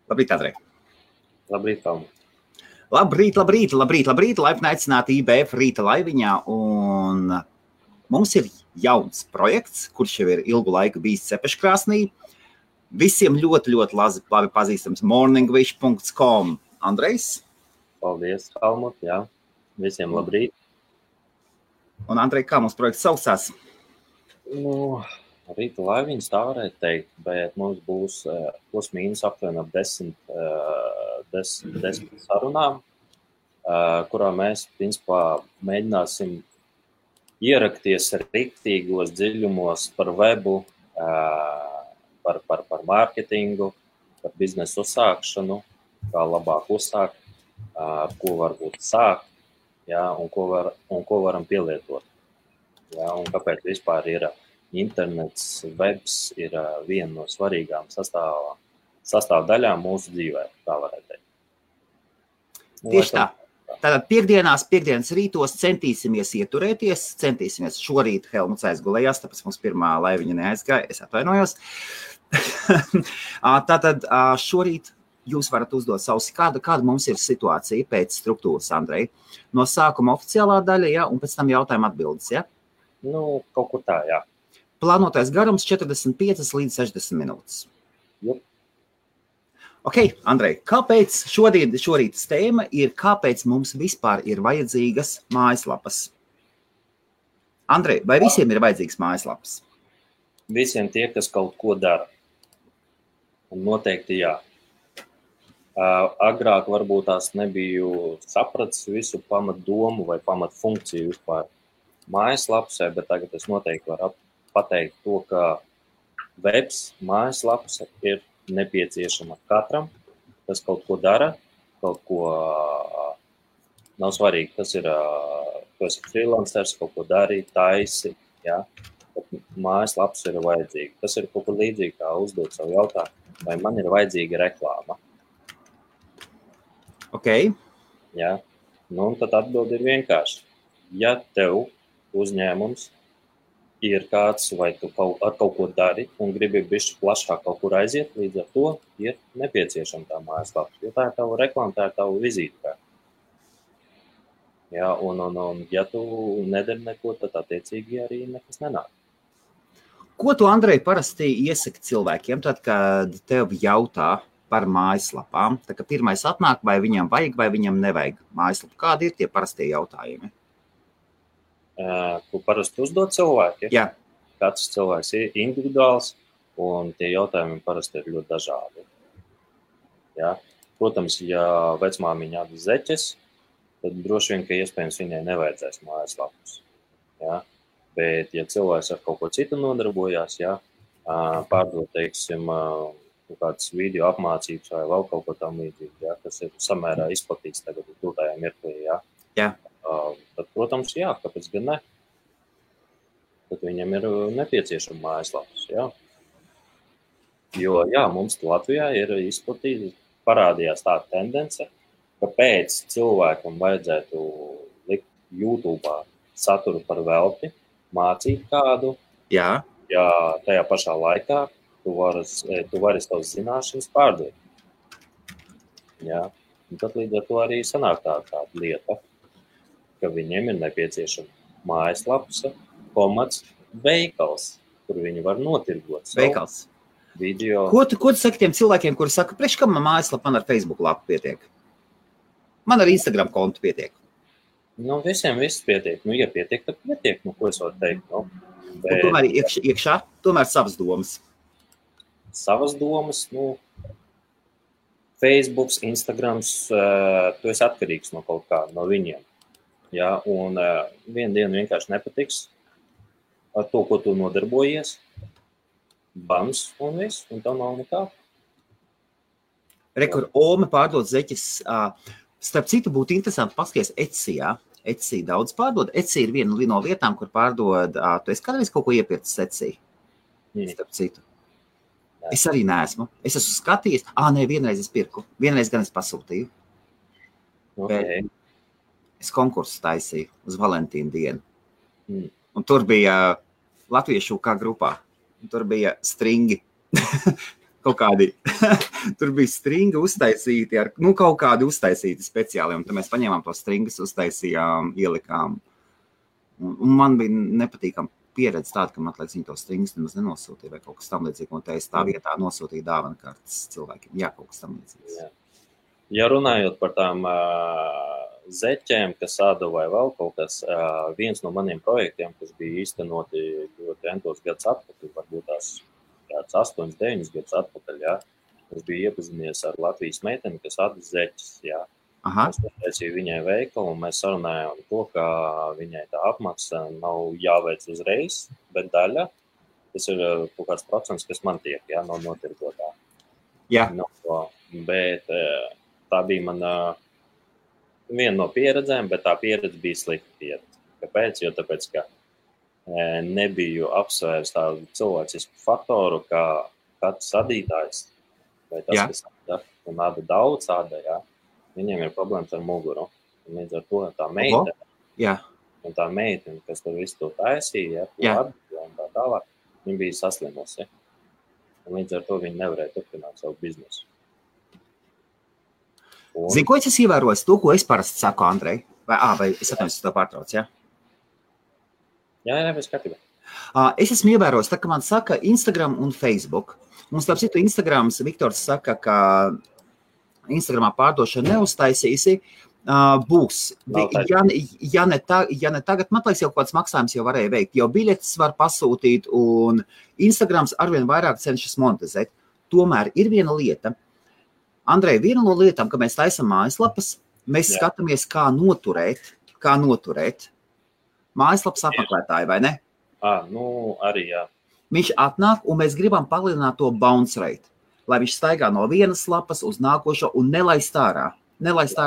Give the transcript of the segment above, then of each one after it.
Labrīt, Andrej. Labrīt, Tom. Labrīt. Laipni aicināti IBF rīta laiviņā. Un mums ir jauns projekts, kurš jau ir ilgu laiku bijis Cepeškrāsnī. Visiem ļoti labi pazīstams morningwish.com. Andrejs? Paldies, Helmut, jā. Visiem labrīt. Un Andrej, kā mums projekts saucās? Rīta laiviņas tā varētu teikt, bet mums būs plus mīnus aptuveni ap 10 sarunām, kurā mēs, principā, mēģināsim ierakties riktīgos dziļumos par webu, par mārketingu, par biznesu uzsākšanu, kā labāk uzsākt, ar ko varbūt sākt, jā, un ko varam pielietot. Jā, un kāpēc vispār ir internets, webs ir viena no svarīgām sastāvdaļām mūsu dzīvē, tā varētu teikt. Tieši tā. Tātad piekdienas rītos centīsimies ieturēties, šorīt Helmuts aizgulējās, tāpēc mums pirmā laiviņa neaizgāja, es atvainojos. Tātad šorīt jūs varat uzdot savus, kāda mums ir situācija pēc struktūras, Andrej. No sākuma oficiālā daļa, ja, un pēc tam jautājuma atbildes, ja? Kaut kur tā, jā. Plānotais garums 45 līdz 60 minūtes. Jup. Ok, Andrej, kāpēc šorītas tēma ir, kāpēc mums vispār ir vajadzīgas mājaslapas? Andrej, vai visiem ir vajadzīgas mājaslapas? Visiem tie, kas kaut ko dara. Un noteikti jā. Agrāk varbūt tās nebiju sapratis visu pamatdomu vai pamatfunkciju vispār mājaslapsē, bet tagad es noteikti varu pateikt to, ka webs, mājaslaps ir nepieciešama katram, kas kaut ko dara, kaut ko nav svarīgi, tas ir, tu esi freelancers, kaut ko dari, taisi, jā, bet mājaslaps ir vajadzīga. Tas ir kaut kur līdzīgi, kā uzdot savu jautājumu, vai man ir vajadzīga reklāma. Ok. Jā, un tad atbildi ir vienkārši. Ja tev uzņēmums ir kāds, vai tu ar kaut ko dari un gribi bišķi plašāk kaut kur aiziet, līdz ar to ir nepieciešama tā mājaslapa. Jo tā ir tava reklāma, tā ir tava vizītkarte. Jā, un ja tu nedari neko, tad attiecīgi arī nekas nenāk. Ko tu, Andrej, parasti iesaki cilvēkiem, tad, kad tev jautā par mājaslapām? Tā kā pirmais atnāk, vai viņam vajag, vai viņam nevajag mājaslapu. Kādi ir tie parastie jautājumi? Ko parasti uzdod cilvēki. Jā. Katrs cilvēks ir individuāls, un tie jautājumi parasti ir ļoti dažādi. Jā. Protams, ja vecmāmiņa atdod zeķes, tad droši vien, ka iespējams viņai nevajadzēs mājaslapus. Jā. Bet, ja cilvēks ar kaut ko citu nodarbojās, jā, pārdod, teiksim, kādas video apmācības vai vēl kaut ko tam līdzīgi, jā, kas ir samērā izplatīts tagad tūtājā mirklī, jā. Jā. Tad, protams, jā, kāpēc gan ne? Tad viņam ir nepieciešama mājaslapas, jā. Jo, jā, mums Latvijā ir izplatīta, parādījās tā tendence, ka pēc cilvēkam vajadzētu likt YouTube'ā saturu par velti, mācīt kādu, jā. Ja tajā pašā laikā tu vari savas zināšanas pārdot. Jā, un tad līdz ar to arī sanāk tāda lieta, ka viņiem ir nepieciešama mājaslapas, veikals, kur viņi var notirgot savu video. Ko tu saki tiem cilvēkiem, kuri saka, priekš kam man mājaslapa, man ar Facebook lapu pietiek? Man ar Instagram kontu pietiek. Visiem viss pietiek. Ja pietiek, tad pietiek. Ko es varu teikt? Bet... Un tomēr iekšā, savas domas. Savas domas, Facebooks, Instagrams, tu esi atkarīgs no kaut kā, no viņiem. Jā, un vienu dienu vienkārši nepatiks ar to, ko tu nodarbojies, bams un viss, un tev nav nekā. Rekur, Ome pārdod zeķes. Starp citu būtu interesanti paskaties Etsy, jā. Etsy daudz pārdod. Etsy ir viena no lietām, kur pārdod, tu esi kādreiz kaut ko iepircis Etsy? Starp citu. Jā. Es arī neesmu. Es esmu skatījies. Vienreiz es pirku. Vienreiz gan es pasūtīju. Okay. Es konkursu taisīju uz Valentīna dienu. Un tur bija latviešu kā grupā. Un tur bija stringi. kaut kādi, tur bija stringa uztaisīti, kaut kādi uztaisīti speciāli, un tad mēs paņēmām to stringas, uztaisījām, ielikām. Un man bija nepatīkama pieredze tāda, ka man liekas, viņi to stringas nemaz nenosūtīja vai kaut kas tam līdzīgi, un es tā vietā nosūtīju dāvanu kartes cilvēkiem. Jā, kaut kas tam līdzīgs. Ja runājot par tām zeķēm, kas āda vai vēl kaut kas, viens no maniem projektiem, kas bija īstenoti ļoti entos gadus atpakaļ, varbūt tās 8, 9 gadus atpakaļ, jā, es biju iepazinies ar Latvijas meiteni, kas āda zeķes, jā. Es taisīju viņai veikalu, un mēs sarunājām to, ka viņai tā apmaksa nav jāveic uzreiz, bet daļa, tas ir kaut kāds procents, kas man tiek, jā, no notirgotā. Jā. Bet tā bija mana viena no pieredzēm, bet tā pieredze bija slikta pieredze. Kāpēc? Jo tāpēc, ka nebiju apsvērs tādu cilvēcisku faktoru, kā katrs adītājs, vai tas, kas āda, un āda daudz āda, jā. Viņiem ir problēmas ar muguru. Un līdz ar to tā meitene, kas tur visu to taisīja, un tā tālāk, viņa bija saslimusi. Un līdz ar to viņa nevarēja turpināt savu biznesu. Zini, ko es ievēroju? To, ko es parasti saku, Andrej? Vai es atnācu to pārtrauc, jā? Jā, bez skatībā. Es esmu ievērojis, tā, ka man saka Instagram un Facebook. Un starp citu, Instagrams, Viktors saka, ka Instagramā pārdošana neuztaisīsi, būs. Ja ne tagad, man liekas, jau kāds maksājums jau varēja veikt, jau biļetes var pasūtīt, un Instagrams arvien vairāk cenšas monetizēt. Tomēr ir viena lieta. Andrej, viena no lietām, ka mēs taisam mājaslapas, mēs skatāmies, kā noturēt mājaslapas apmeklētāju, vai ne? Arī jā. Viņš atnāk, un mēs gribam palielināt to bounce rate, lai viņš staigā no vienas lapas uz nākošo un nelaist ārā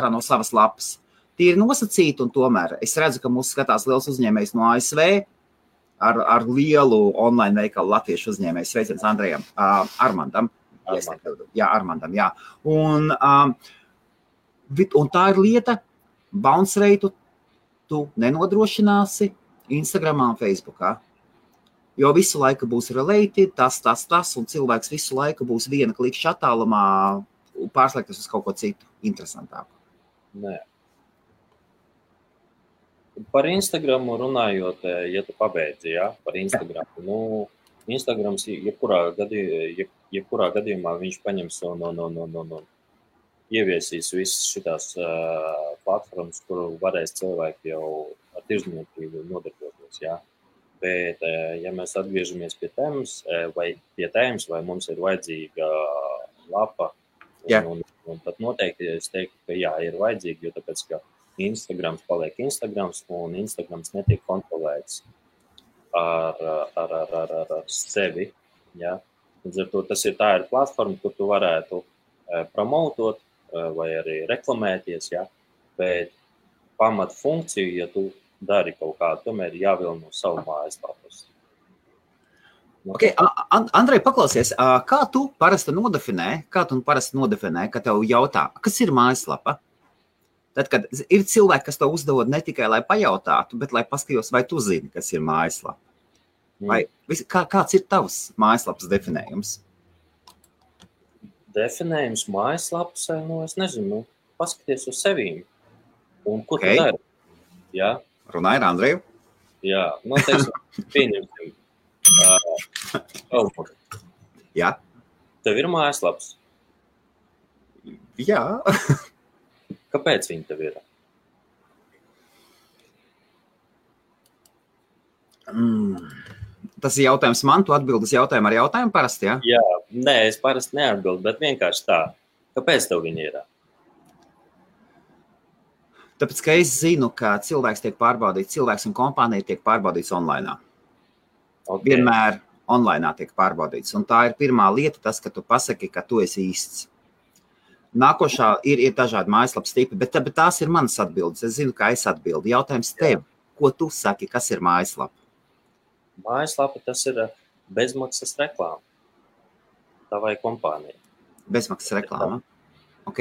no savas lapas. Tie ir nosacīti, un tomēr es redzu, ka mūs skatās liels uzņēmējs no ASV ar lielu online veikalu latviešu uzņēmējs. Sveiciens Andrejam, Armandam. Armandam, jā. Un tā ir lieta, bounce rate tu nenodrošināsi Instagramā un Facebookā. Jo visu laiku būs related, tas, un cilvēks visu laiku būs viena klikšķa attālumā pārslēgties uz kaut ko citu interesantāku. Nē. Par Instagramu runājot, ja tu pabeidzi, par Instagramu. Instagrams, jebkurā gadījumā viņš paņems un ieviesīs visas šitās platformas, kuru varēs cilvēki jau ar tirzniecību nodarboties, jā. Bet, ja mēs atgriežamies pie tēmas, vai mums ir vajadzīga lapa, un tad noteikti es teiktu, ka jā, ir vajadzīga, jo tāpēc, ka Instagrams paliek Instagrams, un Instagrams netiek kontrolēts ar sevi, jā. Līdz ar to tā ir platforma, kur tu varētu promotot vai arī reklamēties, jā, bet pamat funkciju, ja tu dari kaut kādu, tomēr jāvilno savu mājaslapas. Okay, Andrej, paklausies, kā tu parasti nodefinē, ka tev jautā, kas ir mājaslapa? Tad, kad ir cilvēki, kas to uzdod ne tikai, lai pajautātu, bet lai paskatījos, vai tu zini, kas ir mājaslapa? Vai, kāds ir tavs mājaslapas definējums? Definējums mājaslapas, es nezinu, paskaties uz sevīm. Un ko tu dari? Jā. Runāja ar Andreju? Jā, teiksim, pieņemsim. Jā. Tev ir mājaslaps? Jā. Kāpēc viņi tev ir? Tas ir jautājums man, tu atbildes jautājumu ar jautājumu parasti, jā? Jā, nē, es parasti neatbildu, bet vienkārši tā. Kāpēc tev viņi ir? Tāpēc, ka es zinu, ka cilvēks tiek pārbaudīts, cilvēks un kompānija tiek pārbaudīts online. Okay. Vienmēr online tiek pārbaudīts. Un tā ir pirmā lieta, tas, ka tu pasaki, ka tu esi īsts. Nākošā ir dažādi mājaslapas tipi, bet tās ir manas atbildes. Es zinu, kā es atbildu. Jautājums tev, ko tu saki, kas ir mājaslapa? Mājaslapa tas ir bezmaksas reklāma. Tavai kompānijai. Bezmaksas reklāma? Ok.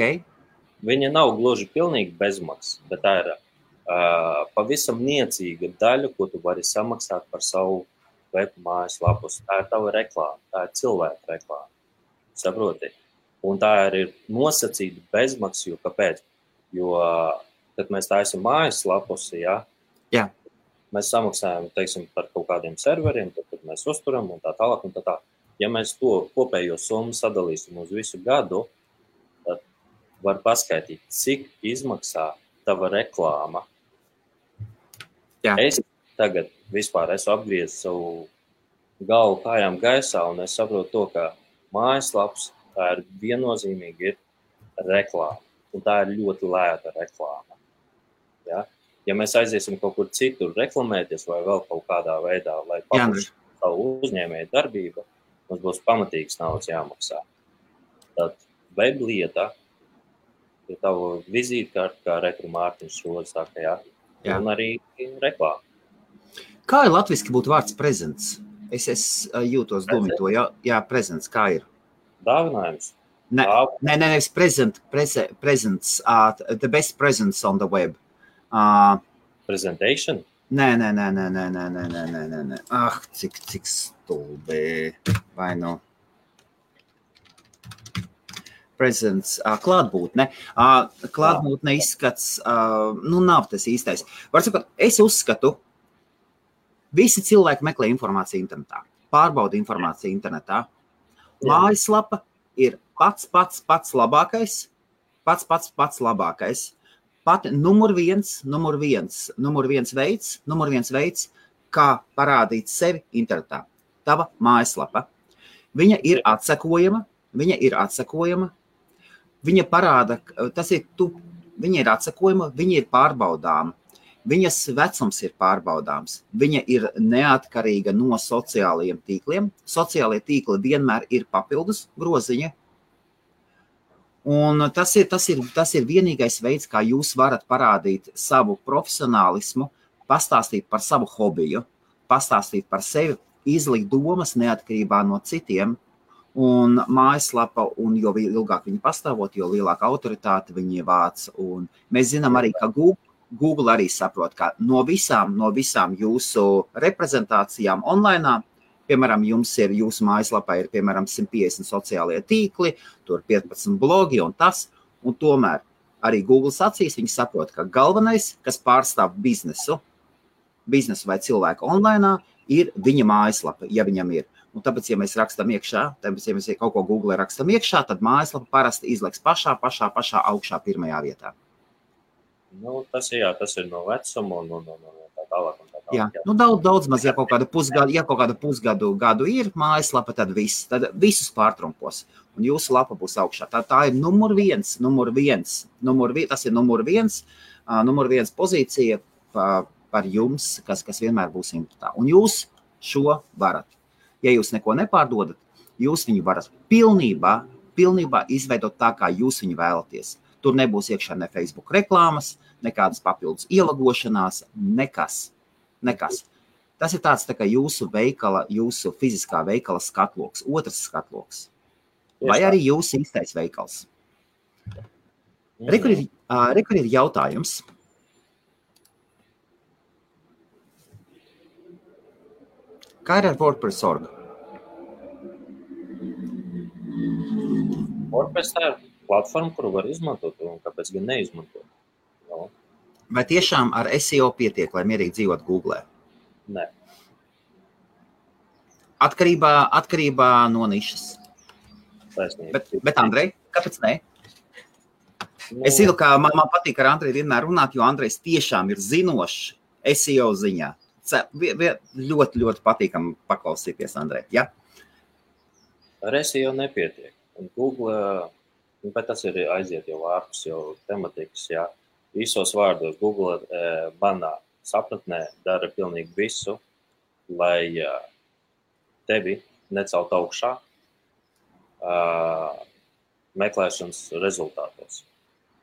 Viņa nav gluži pilnīgi bezmaksas, bet tā ir pavisam niecīga daļa, ko tu vari samaksāt par savu web mājaslapus. Tā ir tava reklāma, tā ir cilvēka reklāma. saproti. Un tā ir nosacīta bezmaksa, jo kāpēc? Jo, kad mēs taisam mājaslapus, Jā. Mēs samaksājam, teiksim, par kaut kādiem serveriem, tad mēs uzturam un tā tālāk un tā tā. Ja mēs to kopējo summu sadalīsim uz visu gadu, tad var paskaidīt, cik izmaksā tava reklāma. Jā. Es tagad vispār esmu apgriezis savu galvu kājām gaisā un es saprotu to, ka mājaslaps tā ir viennozīmīgi ir reklāma. Un tā ir ļoti lēta reklāma. Ja? Ja mēs aiziesim kaut kur citur reklamēties vai vēl kaut kādā veidā, lai paplašinātu savu uzņēmēju darbību, mums būs pamatīgs naudas jāmaksā. Tad web lieta ir tava vizītkarte, kā Rekru Mārtiņš šodien saka, jā. Un arī reklāma. Kā ir latviski būtu vārds prezents? Es jūtos domāt to, jā, prezents, kā ir? Dāvinājums. Nevis presents, the best presents on the web. Presentation? Nē. Cik stulbi. Vai nu? Presents, klātbūtne. Klātbūtne izskats, nav tas īstais. Var sakot, es uzskatu, visi cilvēki meklē informāciju internetā, pārbauda informāciju internetā. Mājaslapa ir pats labākais, pats labākais. Pat numur viens veids, kā parādīt sevi internetā. Tava mājaslapa. Viņa ir atsekojama, viņa parāda, viņa ir atsekojama, viņa ir pārbaudāma, viņas vecums ir pārbaudāms, viņa ir neatkarīga no sociālajiem tīkliem. Sociālie tīkli vienmēr ir papildus groziņa. Un tas ir vienīgais veids, kā jūs varat parādīt savu profesionālismu, pastāstīt par savu hobiju, pastāstīt par sevi, izlikt domas neatkarībā no citiem. Un mājaslapa, un jo ilgāk viņi pastāvot, jo lielāka autoritāte viņi vāc. Un mēs zinām arī, ka Google arī saprot, ka no visām jūsu reprezentācijām online, piemēram, jūsu mājaslapā ir, piemēram, 150 sociālie tīkli, tur 15 blogi un tas, un tomēr arī Google acīs viņi saprot, ka galvenais, kas pārstāv biznesu vai cilvēku online, ir viņa mājaslapa, ja viņam ir. Un tāpēc, ja mēs rakstam iekšā, ja mēs kaut ko Google rakstam iekšā, tad mājaslapa parasti izliks pašā augšā pirmajā vietā. Nu, tas ir no vecuma un tā tālāk. Jā, daudz maz, ja kaut kādu pusgadu ir mājaslapa, tad visus pārtrumpos. Un jūsu lapa būs augšā. Tā ir numur viens. Tas ir numur viens pozīcija par jums, kas vienmēr būs internetā. Un jūs šo varat. Ja jūs neko nepārdodat, jūs viņu varat pilnībā izveidot tā, kā jūs viņu vēlaties. Tur nebūs iekšā ne Facebook reklāmas, nekādas papildus ielagošanās, nekas. Tas ir tāds tā kā jūsu fiziskā veikala skatloks, otrs skatloks. Vai arī jūsu īstais veikals. Rekur ir jautājums. Kā ir ar WordPress.org? WordPress tā ir platforma, kuru var izmantot, un kāpēc gan neizmantot? No. Vai tiešām ar SEO pietiek, lai mierīgi dzīvot Google? Nē. Atkarībā no nišas. Bet Andrej, kāpēc ne? Es zinu, ka man patīk ar Andreju vienmēr runāt, jo Andrejs tiešām ir zinošs SEO ziņā. Ļoti patīkam paklausīties, Andrej. Ja? Ar SEO nepietiek. Un Google, bet tas ir aiziet jau ārpus jau tematikas, jā. Visos vārdos Google manā sapratnē dara pilnīgi visu, lai tevi necelt augšā meklēšanas rezultātos.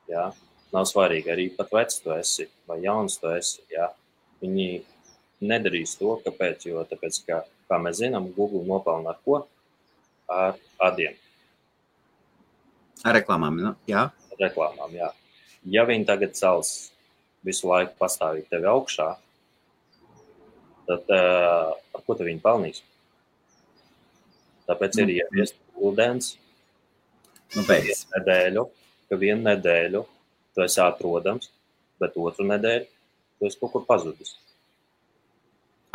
Jā. Nav svarīgi, arī pat vecs tu esi vai jauns tu esi. Jā. Viņi nedarīs to, kāpēc, jo tāpēc, kā mēs zinām, Google nopelna ar ko? Ar adiem. Ar reklāmām, jā? Reklāmām, jā. Ja viņi tagad cels visu laiku pastāvīgi tevi augšā, tad ar ko te viņi pelnīs? Tāpēc ir ieviest ūdens Nu, beidz. Vienu nedēļu tu esi atrodams, bet otru nedēļu tu esi kaut kur pazudis.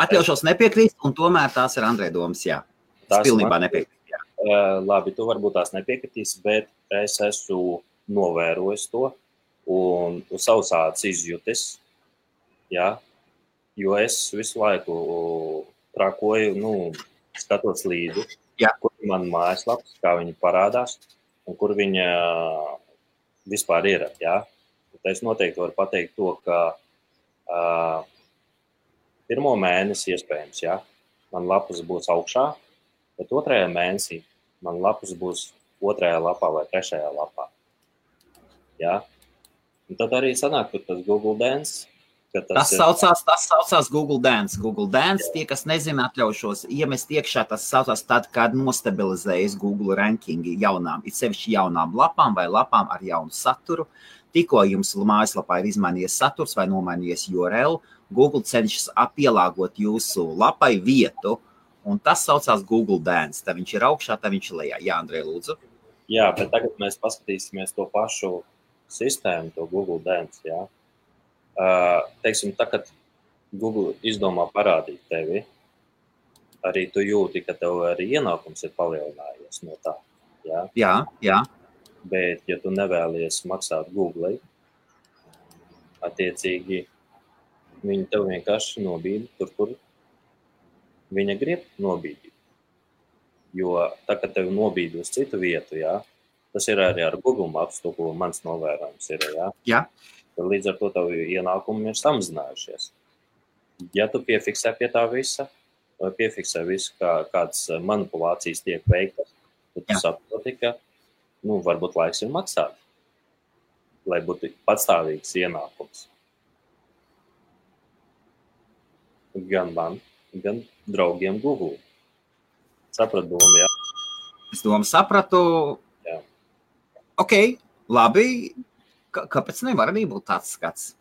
Atļaušos nepiekrīst, un tomēr tās ir Andrei domas, jā. Es pilnībā nepiekrīst, jā. Labi, tu varbūt tās nepiekritīs, bet es esmu novērojis to un savus ādas izjutis, jā, jo es visu laiku trakoju, skatos līdzi, kur man mājaslaps, kā viņi parādās, un kur viņa vispār ir, jā. Es noteikti varu pateikt to, ka pirmo mēnesi iespējams, jā, man lapas būs augšā, bet otrajā mēnesī man lapas būs otrajā lapā vai trešajā lapā. Jā. Un tad arī sanāk, ka tas Google Dance. Tas saucās Google Dance. Google Dance, tie, kas nezina, atļaušos iemest iekšā, tas saucās tad, kad nostabilizējas Google rankingi jaunām, it sevišķi jaunām lapām vai lapām ar jaunu saturu. Tikko jums mājaslapā ir izmainījies saturs vai nomainījies URL, Google cenšas pielāgot jūsu lapai vietu, un tas saucās Google Dance. Tad viņš ir augšā, tad viņš ir lejā. Jā, Andrej, lūdzu. Jā, bet tagad mēs paskatīsimies to pašu sistēmu, to Google Dance, jā. Teiksim, tā, kad Google izdomā parādīt tevi, arī tu jūti, ka tev arī ienākums ir palielinājies no tā, jā? Jā. Bet, ja tu nevēlies maksāt Google, attiecīgi, viņi tev vienkārši nobīdi tur, kur viņa grib nobīdīt. Jo tā, kad tev nobīdi uz citu vietu, jā, tas ir arī ar Google Maps, to, ko mans novērojums ir, jā. Jā. Tad līdz ar to tavu ienākumi ir samazinājušies. Ja tu piefiksē pie tā visa, vai piefiksē visu, kādas manipulācijas tiek veiktas, tad tu saproti, ka, varbūt laiks ir maksāt, lai būtu patstāvīgs ienākums. Gan man, gan draugiem Google. Saprat domu, jā? Es domu sapratu. Jā. Ok, labi. Kāpēc nevar arī būt tāds skats?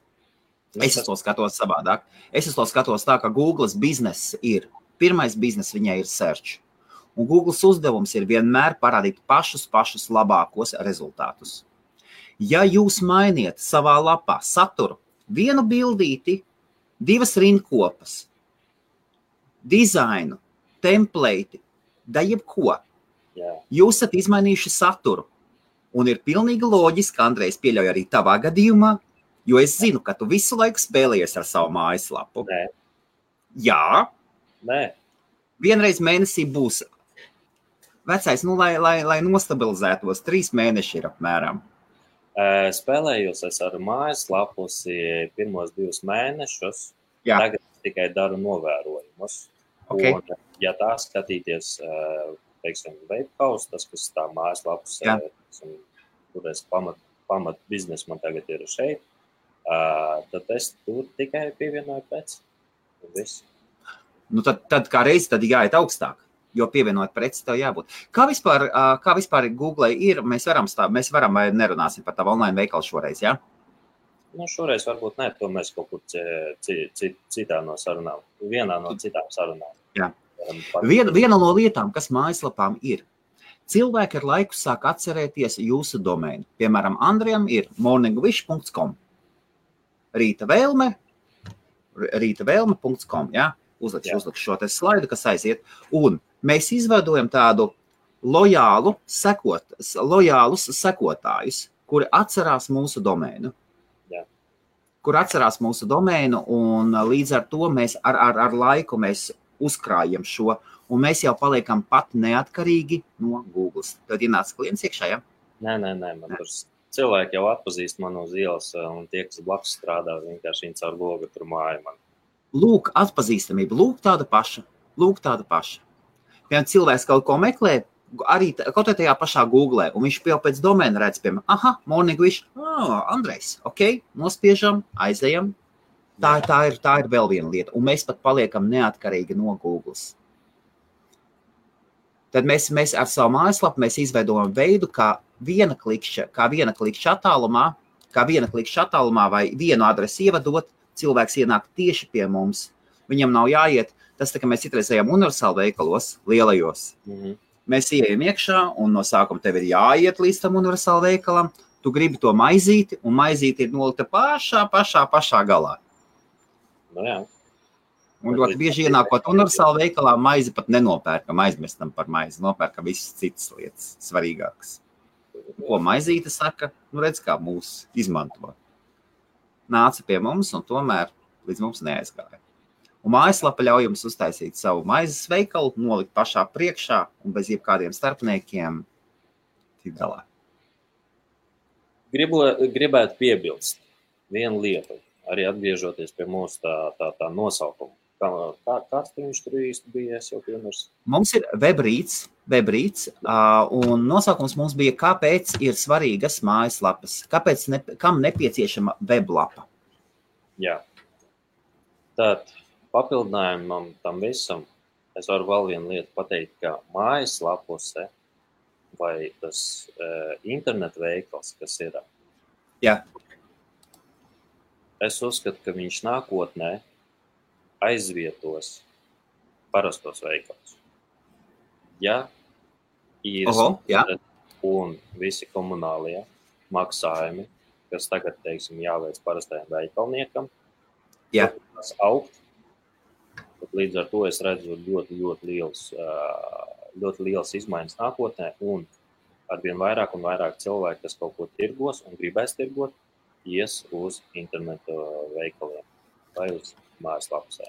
Es to skatos savādāk. Es to skatos tā, ka Google's bizness ir, pirmais bizness viņai ir search. Un Google's uzdevums ir vienmēr parādīt pašus labākos rezultātus. Ja jūs mainiet savā lapā saturu, vienu bildīti, 2 rindkopas, dizainu, template, da jebko, jūs esat izmainījuši saturu. Un ir pilnīgi loģiski, Andrejs pieļauj arī tavā gadījumā, jo es zinu, ka tu visu laiku spēlējies ar savu mājaslapu. Nē. Jā. Nē. Vienreiz mēnesī būs. Vecais, lai nostabilizētos, 3 mēneši ir apmēram. Spēlējos es ar mājaslapus pirmos 2 mēnešus. Jā. Tagad es tikai daru novērojumus. Okay. Un, ja tā skatīties, teiksim, Webhouse, tas, kas tā mājaslapas, kur es pamat biznesu man tagad ir šeit, tad es tur tikai pievienoju preci. Viss. Tad kā reizi tad jāiet augstāk, jo pievienot preci tev jābūt. Kā vispār Google ir, mēs varam vai nerunāsim par tavu online veikalu šoreiz, jā? Šoreiz varbūt ne, to mēs kaut kur citā no sarunām, vienā no citām sarunām. Jā. Viena no lietām, kas mājaslapām ir, cilvēki ar laiku sāk atcerēties jūsu domēnu. Piemēram, Andrejam ir morningwish.com. rītavēlme.com, jā? Uzlikšu šo te slaidu, kas aiziet. Un mēs izveidojam tādu lojālus sekotājus, kuri atcerās mūsu domēnu. Un līdz ar to mēs ar laiku mēs uzkrājam šo, un mēs jau paliekam pat neatkarīgi no Google. Tad ienāca klients iekšā, ja? Nē, man tur cilvēki jau atpazīst manu uz ielas, un tie, kas blakus strādā, vienkārši viņi caur logu tur māja man. Lūk, atpazīstamība, lūk tāda paša. Piemēram, cilvēks kaut ko meklē, arī kaut tajā pašā Google, un viņš jau pēc domēna redz, piemēram, Morningwish, Andrejs, ok, nospiežam, aizejam. Tā ir vēl viena lieta, un mēs pat paliekam neatkarīgi no Google. Tad mēs ar savu mājaslapu mēs izveidojam veidu, kā viena klikšķa attālumā vai vienu adresi ievadot, cilvēks ienāk tieši pie mums. Viņam nav jāiet, tas tā, ka mēs citreiz ejam universāli veikalos, lielajos. mēs ieejam iekšā, un no sākuma tev ir jāiet līdz tam universāla veikalam, tu gribi to maizīti, un maizīti ir nolika pašā galā. Nu jā. Un ļoti bieži ienākot universāla veikalā, maizi pat nenopērkam, aizmestam par maizi, nopērkam visas citas lietas svarīgākas. Ko maizīte saka? Nu redz, kā mūs izmanto. Nāca pie mums un tomēr līdz mums neaizgāja. Un mājaslapa ļauj jums uztaisīt savu maizes veikalu, nolikt pašā priekšā un bez jebkādiem starpniekiem tik galā. Gribētu piebilst vienu lietu, arī atgriežoties pie mūsu tā nosaukuma. Kāds viņš tur īsti bija, es jau piemērs? Mums ir webrīts, un nosaukums mums bija, kāpēc ir svarīgas mājaslapas, kam nepieciešama weblapa. Jā. Tad papildinājumam tam visam, es varu vēl vienu lietu pateikt, ka mājaslapuse vai tas internet veikals, kas ir. Jā. Es uzskatu, ka viņš nākotnē aizvietos parastos veikals. Ja ir un visi komunālie maksājumi, kas tagad, teiksim, jāveic parastajam veikalniekam, tas augt, tad līdz ar to es redzu ļoti liels izmaiņas nākotnē, un arvien vairāk un vairāk cilvēki, kas kaut ko tirgos un gribēs tirgot, ies uz internetu veikaliem vai uz mājaslapusē.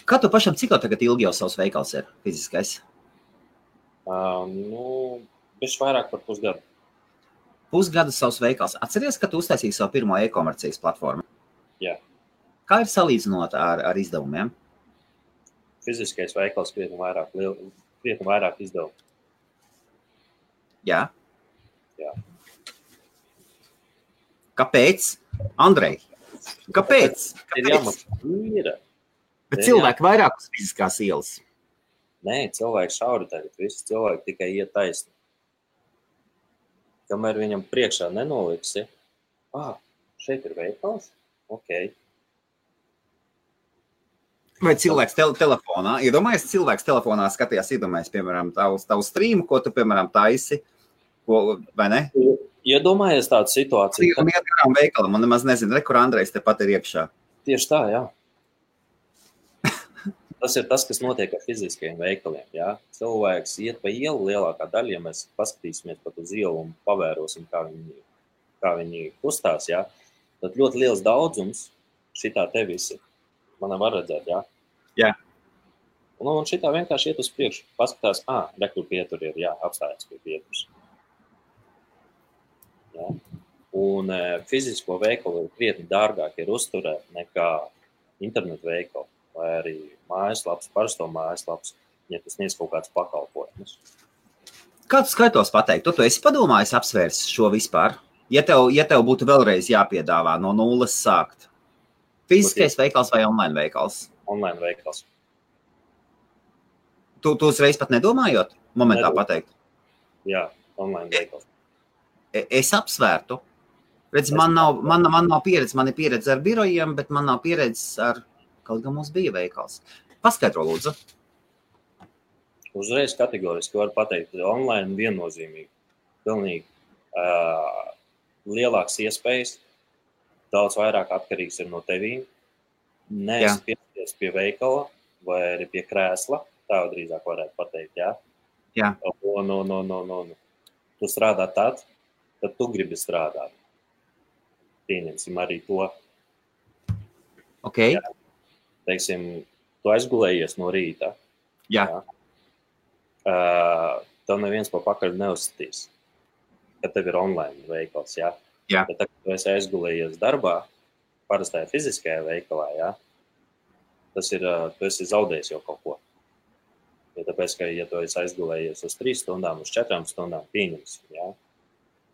Kā tu pašam, cik tagad ilgi jau savs veikals ir fiziskais? Bišķi vairāk par pusgadu. Pusgadu savs veikals. Atceries, ka tu uztaisīji savu pirmo e-komercijas platformu? Jā. Kā ir salīdzinot ar izdevumiem? Fiziskais veikals krietni vairāk izdevumu. Jā? Jā. Kāpēc? Andrej, kāpēc? Ir jāmaksā īra. Bet cilvēki vairāk uz fiziskās ielas. Nē, cilvēki šauri tagad. Visi cilvēki tikai iet taisni. Kamēr viņam priekšā nenoliksi, šeit ir veikals? Ok. Vai cilvēks telefonā? Iedomājies, cilvēks telefonā skatījās, piemēram, tavu streamu, ko tu, piemēram, taisi, vai ne? Iedomājies tādu situāciju. Un iet garām veikalam, un nemaz nezinu, kur Andrejs tepat ir iekšā. Tieši tā, jā. Tas ir tas, kas notiek ar fiziskajiem veikaliem. Jā. Cilvēks iet pa ielu lielākā daļa, ja mēs paskatīsimies pat uz ielu un pavērosim, kā viņi kustās, jā, tad ļoti liels daudzums šitā te visi. Man var redzēt, jā? Jā. Un šitā vienkārši iet uz priekšu. Paskatās, rekur pietur ir, jā, apstājas pie pieturas. Jā. Un fizisko veikalu ir krietni dārgāk ir uzturēt nekā internetu veikalu vai arī mājaslaps, parasto mājaslaps, ja tas sniedz kaut kāds pakalpojumus. Kā tu skaitos pateikt? Tu esi padomājis apsvērs šo vispār? Ja tev būtu vēlreiz jāpiedāvā no nulles sākt? Fiziskais veikals vai online veikals? Online veikals. Tu uzreiz pat nedomājot? Momentā pateikt? Jā, online veikals. Es apsvērtu. Redz, man nav pieredze, man ir pieredze ar birojiem, bet man nav pieredzes ar, kaut gan mums bija veikals. Paskaidro, lūdzu. Uzreiz kategoriski var pateikt, online viennozīmīgi. Pilnīgi lielāks iespējas, daudz vairāk atkarīgs ir no tevīm. Neesi piesties pie veikala vai arī pie krēsla, tā drīzāk varētu pateikt, jā? Jā. Tu strādā tad tu gribi strādāt. Pieņemsim arī to. Ok. Jā. Teiksim, tu aizgulējies no rīta. Jā. Tev neviens pa pakaļ neuzsitīs, kad tev ir online veikals, jā? Jā. Bet tagad tu esi aizgulējies darbā, parastajā fiziskajā veikalā, jā? Tas ir, tu esi zaudējis jau kaut ko. Jo tāpēc, ka, ja tu esi aizgulējies uz 3 stundām, uz 4 stundām pieņemsim, jā?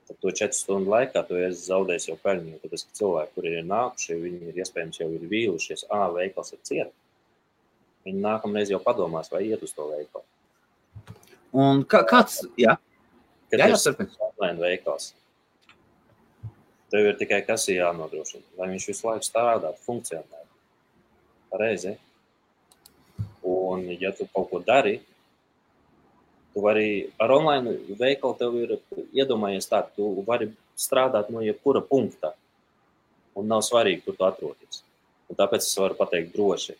Tad to 4 stundu laikā tu esi zaudējis jau peļņu, tāpēc, ka cilvēki, kuri ir nākuši, viņi ir iespējams jau ir vīlušies, veikals ir ciet. Viņi nākamreiz jau padomās, vai iet uz to veikalu. Un kāds, jā? Kad ir online veikals, tev ir tikai kas ir jānodrošina, lai viņš visu laiku strādātu, funkcionētu. Pareizi. Un, ja tu kaut ko dari, Tu vari ar online veikalu tev ir iedomājies tā, tu vari strādāt no jebkura punkta un nav svarīgi, kur tu atrodies. Un tāpēc es varu pateikt droši,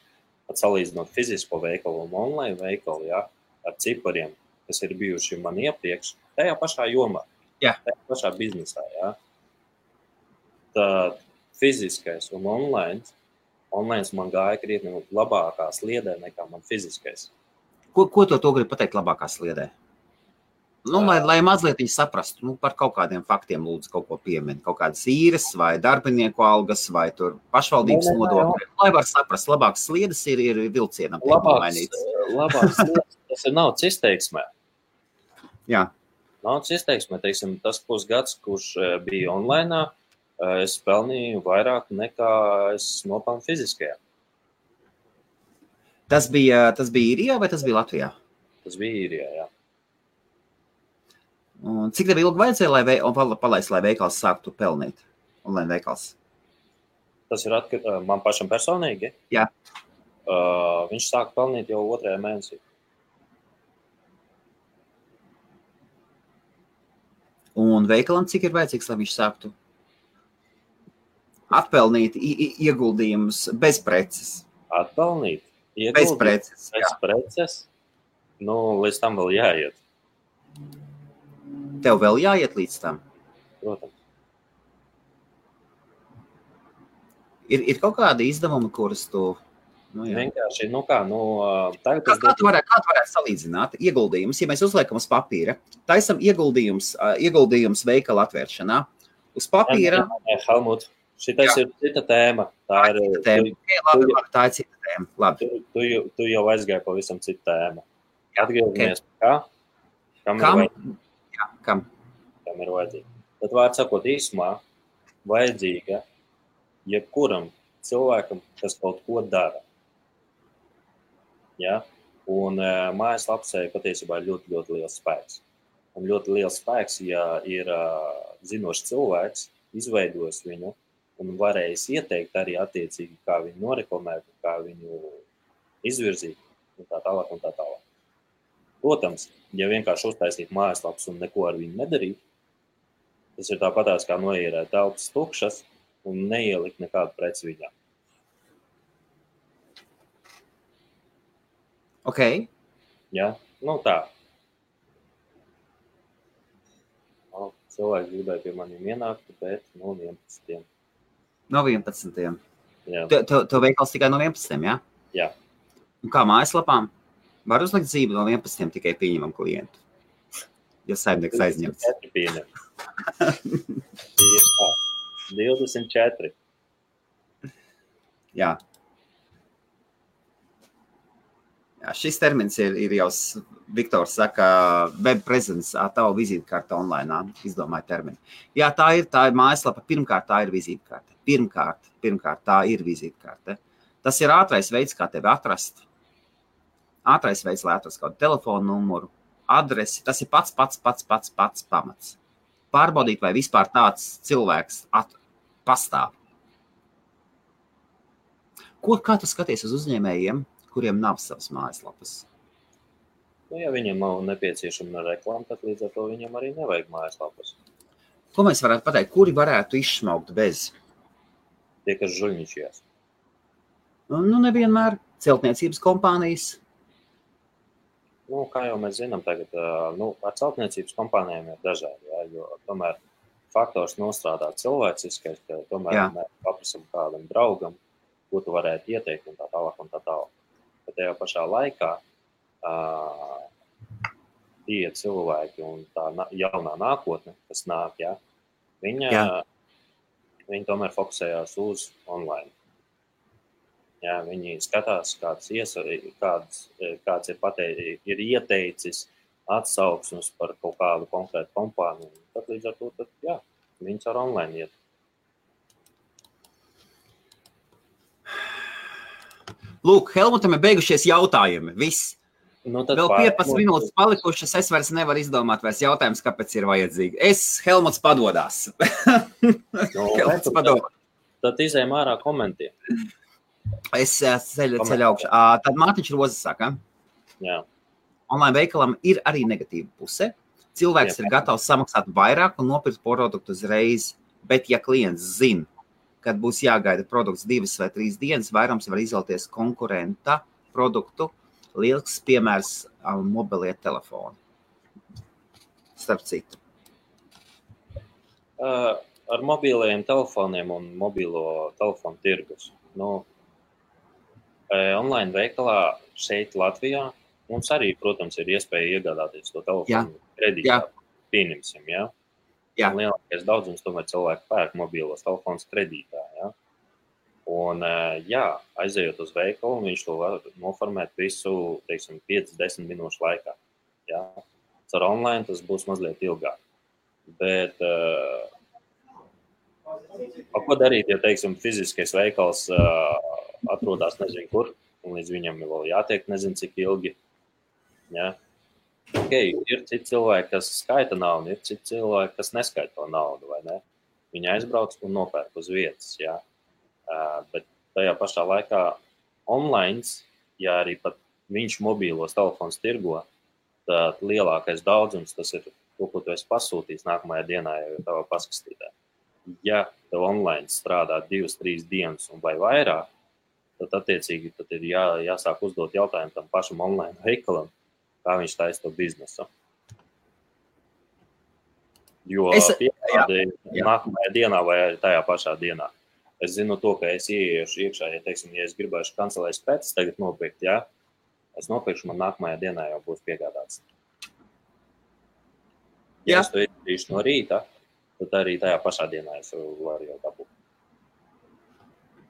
pat salīdzinot fizisko veikalu un online veikalu, ja, ar cipariem, kas ir bijuši man iepriekš, tajā pašā jomā, tajā pašā biznesā. Ja. Tad fiziskais un online man gāja krietni labākā sliedē nekā man fiziskais. Ko to grib pateikt labākā sliedē? Nu, lai mazliet viņi saprastu, par kaut kādiem faktiem lūdzu kaut ko piemin, kaut kādas īres vai darbinieku algas vai tur pašvaldības nodokļi. Lai var saprast, labākas sliedes ir vilcienam. Labākas sliedes, tas ir naudas izteiksmē. Jā. Naudas izteiksmē, teiksim, tas pusgads, kurš bija online, es pelnīju vairāk nekā es nopelnu fiziskajā. Tas bija Īrijā vai tas bija Latvijā? Tas bija Īrijā, jā. Un cik tev ilgi vajadzēja, lai veikals sāktu pelnīt? Online veikals? Tas ir man pašam personīgi? Jā. Viņš sāka pelnīt jau 2. mēnesī. Un veikalam cik ir vajadzīgs, lai viņš sāktu atpelnīt ieguldījumus bez preces? Atpelnīt? Bez preces. Bez preces? Nu, līdz tam vēl jāiet. Tev vēl jāiet līdz tam? Protams. Ir kaut kādi izdevumi, kurus tu... Vienkārši, tagad... Kā tu varētu salīdzināt ieguldījumus, ja mēs uzliekam uz papīra? Taisam ieguldījums veikala atvēršanā. Uz papīra... Helmut, šitais ir cita tēma. Tā ir cita tēma. Labi. Tu jau aizgāji pavisam citu tēmu. Atgriežamies kā? Kam ir vajadzīga? Tad vārds sakot īsumā, vajadzīga jebkuram cilvēkam, kas kaut ko dara. Ja? Un mājaslapsē patiesībā ir ļoti, ļoti liels spēks. Un ļoti liels spēks, ja ir zinošs cilvēks, izveidojis viņu, un varējis ieteikt arī attiecīgi, kā viņu noreklamēt, kā viņu izvirzīt, un tā tālāk, un tā tālāk. Protams, ja vienkārši uztaisīt mājaslaps un neko ar viņu nedarīt, tas ir tāpatās kā noierēt telpas tukšas un neielikt nekādu preci viņā. Ok. Ja? Tā. Cilvēki gribēja pie maniem ienākt, bet no 11. No 11. Jā. Tev veikals tikai no 11, jā? Jā. Un kā mājaslapām? Var uzlikt zīmi no 11 tikai pieņemam klientu, ja saimnieks aizņemts. 24 pieņem. 24. Jā. Jā, šis termins ir jau, Viktors saka, web presence, tava vizītkārta online, izdomāja terminu. Jā, tā ir mājaslapa, pirmkārt tā ir vizītkārta. Pirmkārt tā ir vizītkārta. Tas ir ātrais veids, kā tevi atrast. Ātrais veids, lai atrast kādu telefonu numuru, adresi. Tas ir pats pamats. Pārbaudīt, vai vispār tāds cilvēks pastāv. Kā tu skaties uz uzņēmējiem, kuriem nav savas mājaslapas? Ja viņiem nav nepieciešama reklāma, tad līdz ar to viņam arī nevajag mājaslapas. Ko mēs varētu pateikt? Kuri varētu izšmaukt bez? Tie, kas žuļņičījās. Nevienmēr. Celtniecības kompānijas. Kā jau mēs zinām tagad, ar celtniecības kompānijām ir dažādi, jā, jo tomēr faktors nostrādā cilvēciskais, ka tomēr mēs paprasam kādam draugam, ko tu varētu ieteikt un tā tālāk un tā tālāk. Bet tajā pašā laikā tie cilvēki un tā jaunā nākotne, kas nāk, jā, viņi tomēr fokusējās uz online. Jā, viņi skatās, kāds ir ieteicis atsauksmes par kaut kādu konkrētu kompāniju. Tad līdz ar to, viņi ar online iet. Lūk, Helmutam ir beigušies jautājumi. Viss. Vēl 15 minūtes palikušas, es vairs nevaru izdomāt vairs jautājums, kāpēc ir vajadzīgi. Helmuts padodās. Helmuts padodās. Tad izējam ārā komentiem. Es ceļu augšā. Tad Mārtiņš Rozes saka. Jā. online veikalam ir arī negatīva puse. Cilvēks ir gatavs samaksāt vairāk un nopirkt produktu uzreiz, bet ja klients zina, kad būs jāgaida produkts 2 vai 3 dienas, vairums var izvēlēties konkurenta produktu. Lielisks piemērs mobilie telefoni. Starp citu. Ar mobilajiem telefoniem un mobilo telefonu tirgus. Online veikalā šeit Latvijā mums arī, protams, ir iespēja iegādāties to telefonu kredītā. Pieņemsim, jā? Jā. Un lielākais daudzums tomēr cilvēku pērk mobilos telefonus kredītā, jā? Un, aizejot uz veikalu, viņš to var noformēt visu, teiksim, 5-10 minūšu laikā, jā? Ar online tas būs mazliet ilgāk. Bet, ko darīt, ja, teiksim, fiziskais veikals atrodas nezinu kur, un līdz viņam vēl jātiek nezinu cik ilgi. Ja? Ir citi cilvēki, kas skaita naudu, ir citi cilvēki, kas neskaita to naudu, vai ne? Viņi aizbrauc un nopērk uz vietas, ja? Bet tajā pašā laikā online, ja arī pat viņš mobīlos telefons tirgo, tad lielākais daudzums tas ir to, ko tu esi pasūtījis nākamajā dienā jau tavā paskastītē. Ja tev online strādā 2-3 dienas un vai vairāk, tad attiecīgi tad ir jāsāk uzdot jautājumu tam pašam online veikalam, kā viņš taisa to biznesu. Jo piegāde nākamajā dienā vai tajā pašā dienā. Es zinu to, ka es ieiešu iekšā, ja, teiksim, ja es gribēšu kancelēs pēc tagad nopirkt, ja, es nopirkšu, man nākamajā dienā jau būs piegādāts. Ja es to izdarīšu no rīta, tad arī tajā pašā dienā es varu jau dabūt.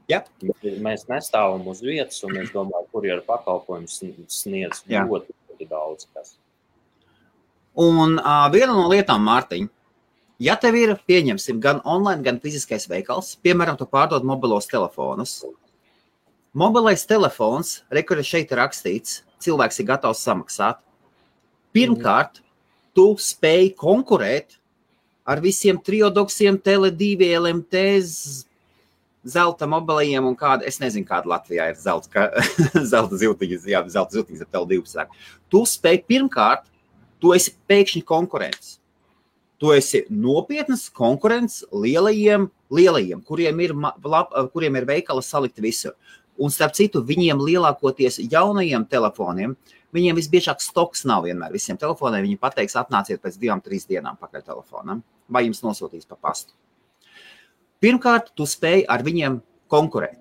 Ja. Mēs nestāvam uz vietas, un es domāju, kurjeru pakalpojums sniedz ļoti daudz kas. Un viena no lietām, Mārtiņ, ja tev ir, pieņemsim, gan online, gan fiziskais veikals, piemēram, tu pārdod mobilos telefonus. Mobilais telefons, kur šeit ir rakstīts, cilvēks ir gatavs samaksāt. Pirmkārt, tu spēj konkurēt ar visiem triodoksiem, Tele2, LMT, zelta mobilajiem un kāda, es nezinu, kāda Latvijā ir zelta ziltiņas, zelta ziltiņas ar Tele2 sāk. Tu spēj pirmkārt, tu esi pēkšņi konkurents. Tu esi nopietnas konkurents lielajiem, kuriem ir veikala salikti visur. Un starp citu, viņiem lielākoties jaunajiem telefoniem, viņiem visbiežāk stoks nav vienmēr visiem telefoniem. Viņi pateiks, atnāciet pēc 2-3 dienām pakaļ telefonam, vai jums nosūtīs pa pastu. Pirmkārt, tu spēj ar viņiem konkurēt.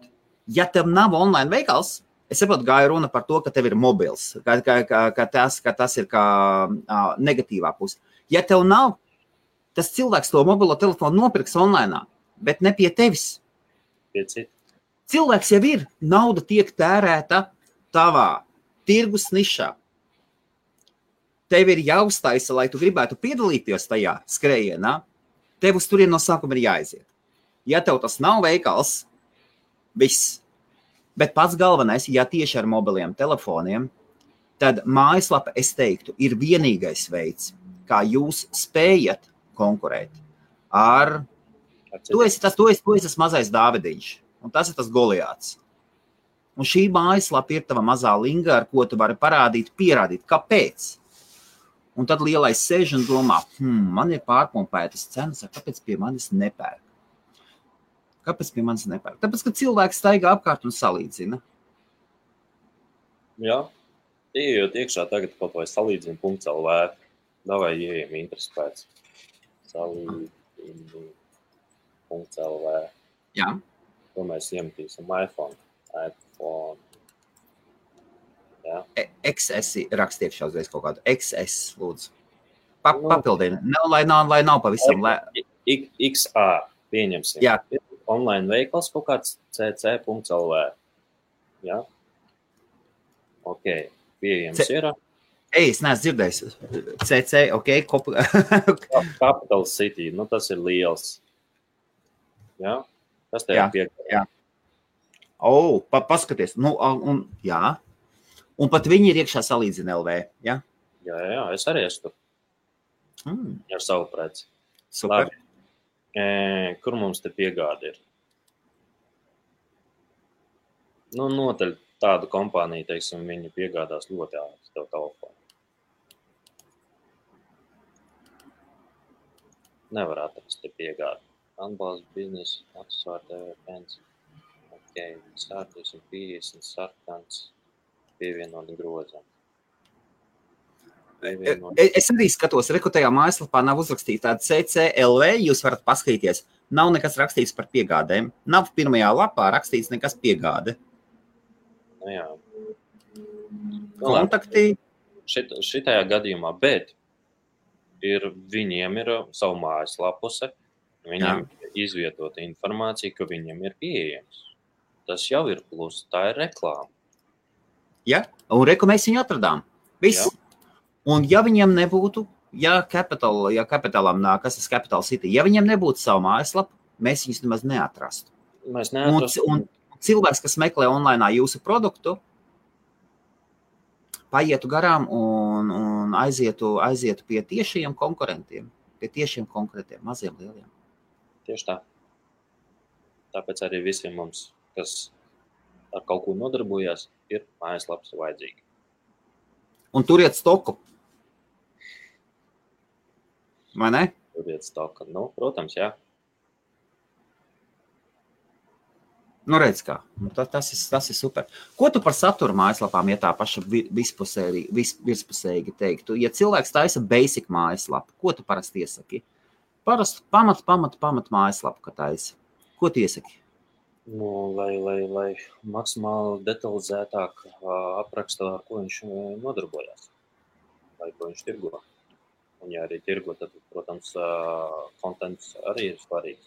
Ja tev nav online veikals, es saprotu, gāju runa par to, ka tev ir mobils, ka tas ir kā negatīvā puse. Ja tev nav, tas cilvēks to mobilo telefonu nopirks online, bet ne pie tevis. Cilvēks jau ir, nauda tiek tērēta tavā tirgus nišā. Tev ir jāuztaisa, lai tu gribētu piedalīties tajā skrējienā, tev uz turien no sākuma ir jāaiziet. Ja tev tas nav veikals, viss. Bet pats galvenais, ja tieši ar mobiliem telefoniem, tad mājaslapa, es teiktu, ir vienīgais veids, kā jūs spējat konkurēt ar... Tu esi tas mazais Dāvidiņš, un tas ir tas Goliāts. Un šī mājaslapa ir tava mazā linga, ar ko tu vari pierādīt, kāpēc. Un tad lielais sēž un domā, man ir pārpumpētas cenas, kāpēc pie manis nepērk? Kāpēc pie manis nepērk? Tāpēc, ka cilvēks staigā apkārt un salīdzina. Jā, iejot iekšā tagad kaut vai salīdzina.lv. Davai ieejam interesi pēc. Salīdzina.lv. Jā. To mēs iemetīsim iPhone. Jā. XS rakstiet šauzreiz kaut kādu. XS, lūdzu. Papildina. Lai nav pavisam. XA pieņemsim. Jā. Online veikals kaut kāds cc.lv. Jā? Ok, pieejams ir. Es neesmu dzirdējis. CC, ok. Capital City, tas ir liels. Jā? Tas tev ir piekā. Jā. Paskaties. Jā. Un pat viņi ir iekšā salīdzina LV, jā? Jā, es arī esmu tur. Ar savu preci. Super. Labi. Kur mums te piegāde ir? Noteļ tādu kompāniju, teiksim, viņi piegādās ļoti ātri tev telefonu. Nevar atrast te piegādi. Atbalsts biznesa, aksesuāri TV pens. Ok, sārties un 50 sarkans, pievienot grozam. Es arī skatos, rekrutajā mājaslapā nav uzrakstīta tāda CCLV, jūs varat paskatīties. Nav nekas rakstīts par piegādēm. Nav pirmajā lapā rakstīts nekas piegāde. Nu jā. Kontakti. Šitajā gadījumā, bet viņiem ir savu mājaslapuse, viņiem ir izvietota informācija, ka viņiem ir pieejams. Tas jau ir plus, tā ir reklāma. Ja, un reku mēs viņu atradām. Viss. Jā. Un ja viņiem nebūtu, ja Capitalām nāk, kas ir Capital City, ja viņiem nebūtu savu mājaslapu, mēs viņus nemaz neatrastu. Mēs neatrastu. Un cilvēks, kas meklē online jūsu produktu, paietu garām un aizietu pie tiešiem konkurentiem, maziem, lieliem. Tieši tā. Tāpēc arī visiem mums, kas ar kaut ko nodarbojās, ir mājaslaps vajadzīgi. Un turiet stoku. Vai ne? Turiet stoku. Nu, protams, jā. Nu, redz kā. Tas ir super. Ko tu par satura mājaslapām, ja tā paša virspusēji teiktu? Ja cilvēks taisa basic mājaslapu, ko tu parasti iesaki? Parasti pamat mājaslapu, ka taisa. Ko tu iesaki? Nu, lai maksimāli detalizētāk apraksta, ar ko viņš nodarbojās. Vai ko viņš tirgo. Un ja arī tirgo, tad, protams, kontents arī ir svarīgs.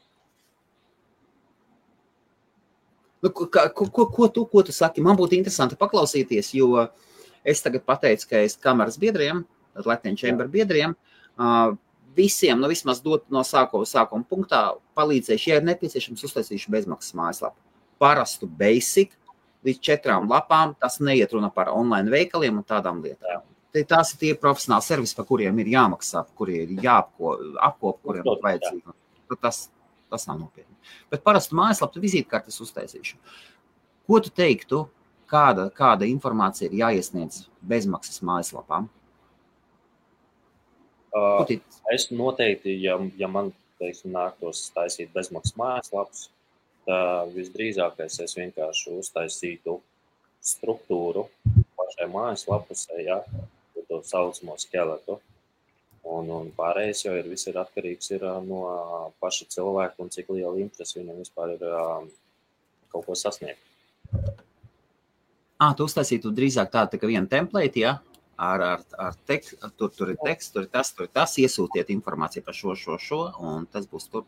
Nu, ko tu saki? Man būtu interesanti paklausīties, jo es tagad pateicu, ka es kameras biedriem, Latvijas Chamber biedriem, visiem, vismaz dot no sākuma punktā, palīdzēšu, ja ir nepieciešams, uztaisīšu bezmaksas mājaslapu. Parastu basic, līdz 4 lapām, tas neiet runa par online veikaliem un tādām lietām. Tās ir tie profesionāli servisi, par kuriem ir jāmaksā, kuriem ir jāapkop, kuriem ir vajadzīgi. Tas nav nopietni. Bet parastu mājaslapu vizītkartes uztaisīšu. Ko tu teiktu, kāda informācija ir jāiesniedz bezmaksas mājaslapām? Es noteikti, ja man, teiksim, nāktos taisīt bezmaksas mājaslapus, tad visdrīzākais es vienkārši uztaisītu struktūru pašai mājaslapusē, ja, to saucamo skeletu. Un pārējais jau viss ir atkarīgs no paša cilvēka un cik liela interese viņam vispār ir kaut ko sasniegt. Tu uztaisītu drīzāk tādu tā kā vienu template, ja? Ar tekstu, tur ir teksts, tur ir tas, iesūtiet informāciju par šo, un tas būs tur,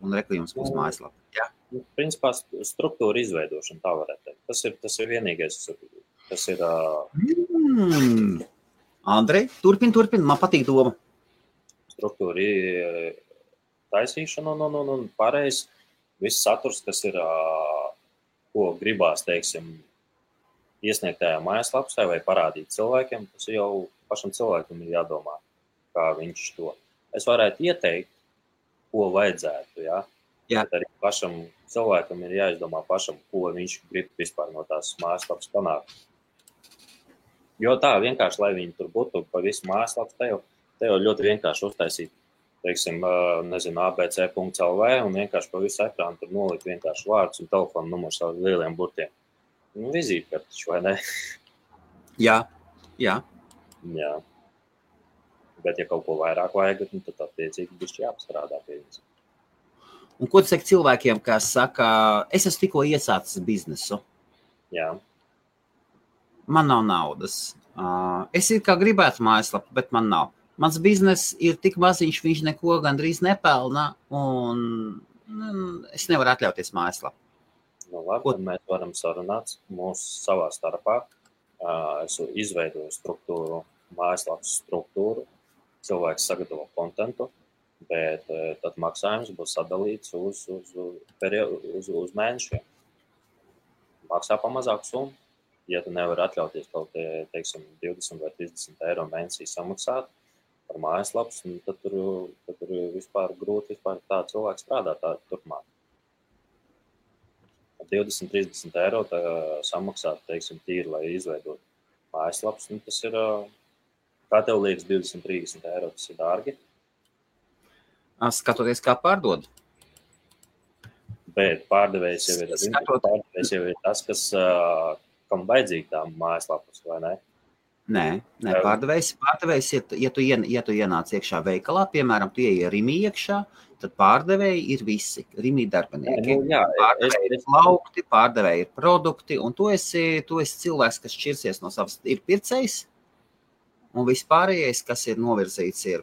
un reklījums būs mājaslapa. Ja? Principā struktūra izveidošana, tā varētu teikt. Tas ir vienīgais, tas ir... Andrej, turpin, man patīk doma. Struktūra taisīšana un pārējais viss saturs, kas ir, ko gribās, teiksim, iesniegt tajā mājaslapsē vai parādīt cilvēkiem, tas jau pašam cilvēkam ir jādomā, kā viņš to. Es varētu ieteikt, ko vajadzētu, ja? Jā. Bet arī pašam cilvēkam ir jāizdomā pašam, ko viņš grib vispār no tās mājaslapas panākt. Jo tā vienkārši, lai viņi tur būtu pa visu mājaslapu, te jau ļoti vienkārši uztaisīt, teiksim, nezinu, abc.lv un vienkārši pa visu ekrānu tur nolikt vienkārši vārdus un telefonu numurs ar lieliem burtiem. Nu, vizītkartiņš, vai ne? Jā. Jā. Bet, ja kaut ko vairāk vajag, tad attiecīgi bišķi jāpastrādā pie viņas. Un ko tu saki cilvēkiem, kas saka, es esmu tikko iesācis biznesu? Jā. Man nav naudas. Es ir kā gribētu mājaslapu, bet man nav. Mans biznes ir tik maziņš, viņš neko gandrīz nepelna, un es nevaru atļauties mājaslapu. Nu, labi, tad mēs varam sarunāt mūsu savā starpā. Es izveidoju struktūru, mājaslapas struktūru, cilvēks sagatavo kontentu, bet tad maksājums būs sadalīts uz mēnešiem. Maksā pa mazāku summu. Ja tu nevari atļauties kaut, teiksim, 20 vai 30 eiro mēnesī samaksāt par mājaslapas, tad tur vispār grūti tā cilvēks strādāt tā turpmāk. 20-30 eiro samaksāt, teiksim, tīri, lai izveidot mājaslapas, tas ir, kā tev liekas, 20-30 eiro, tas ir dārgi? Skatoties, kā pārdod. Bet pārdevējs jau ir tas, kas, kam vajadzīgi tā mājaslapas, vai ne? Nē, pārdevējs, ja tu ienāc iekšā veikalā, piemēram, tu ieej Rimī iekšā, tad pārdevēji ir visi, Rimī darbinieki. Pārdevēji ir laukti, pārdevēji ir produkti, un tu esi cilvēks, kas šķirsies no savas, ir pircējs, un vispārējais, kas ir novirzīts, ir,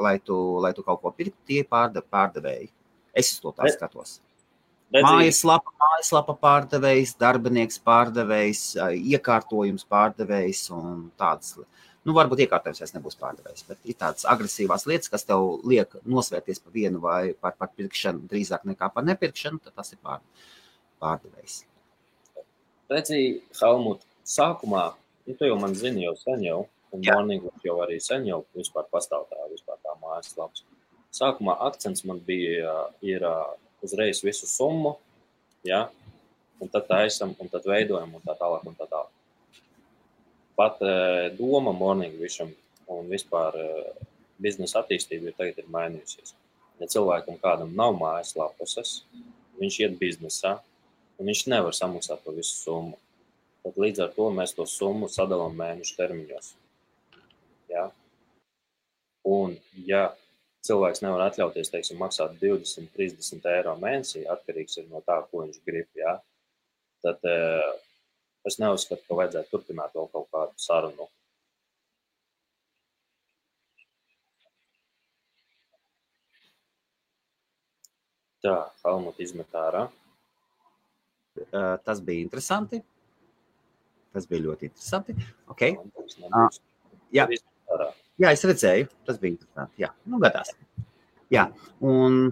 lai tu kaut ko pirkt, tie pārdevēji. Es uz to tā skatos. Mājaslapa pārdevējs, darbinieks pārdevējs, iekārtojums pārdevējs un tādas. Varbūt iekārtojums vairs nebūs pārdevējs, bet ir tādas agresīvās lietas, kas tev liek nosvērties par vienu vai par pirkšanu drīzāk nekā par nepirkšanu, tad tas ir pārdevējs. Redzi, Helmut, sākumā, tu jau man zini jau sen jau, un Morning jau arī sen jau vispār pastāv tā mājaslaps. Sākumā akcents man bija, ir uzreiz visu summu, ja? Un tad taisam, un tad veidojam, un tā tālāk, un tā tālāk. Pat doma Morning Vision un vispār biznesa attīstība tagad ir mainījusies. Ja cilvēkam kādam nav mājaslapas, viņš iet biznesā, un viņš nevar samaksāt to visu summu. Tad līdz ar to mēs to summu sadalām mēnešu termiņos. Ja? Un, ja cilvēks nevar atļauties, teiksim, maksāt 20-30 eiro mēnesī, atkarīgs ir no tā, ko viņš grib, ja? Tad es neuzskatu, ka vajadzētu turpināt vēl kaut kādu sarunu. Tā, Helmut izmet ārā. Tas bija interesanti. Tas bija ļoti interesanti. Okay. Jā. Jā, es redzēju, tas bija interesanti. Jā, gadās. Jā, un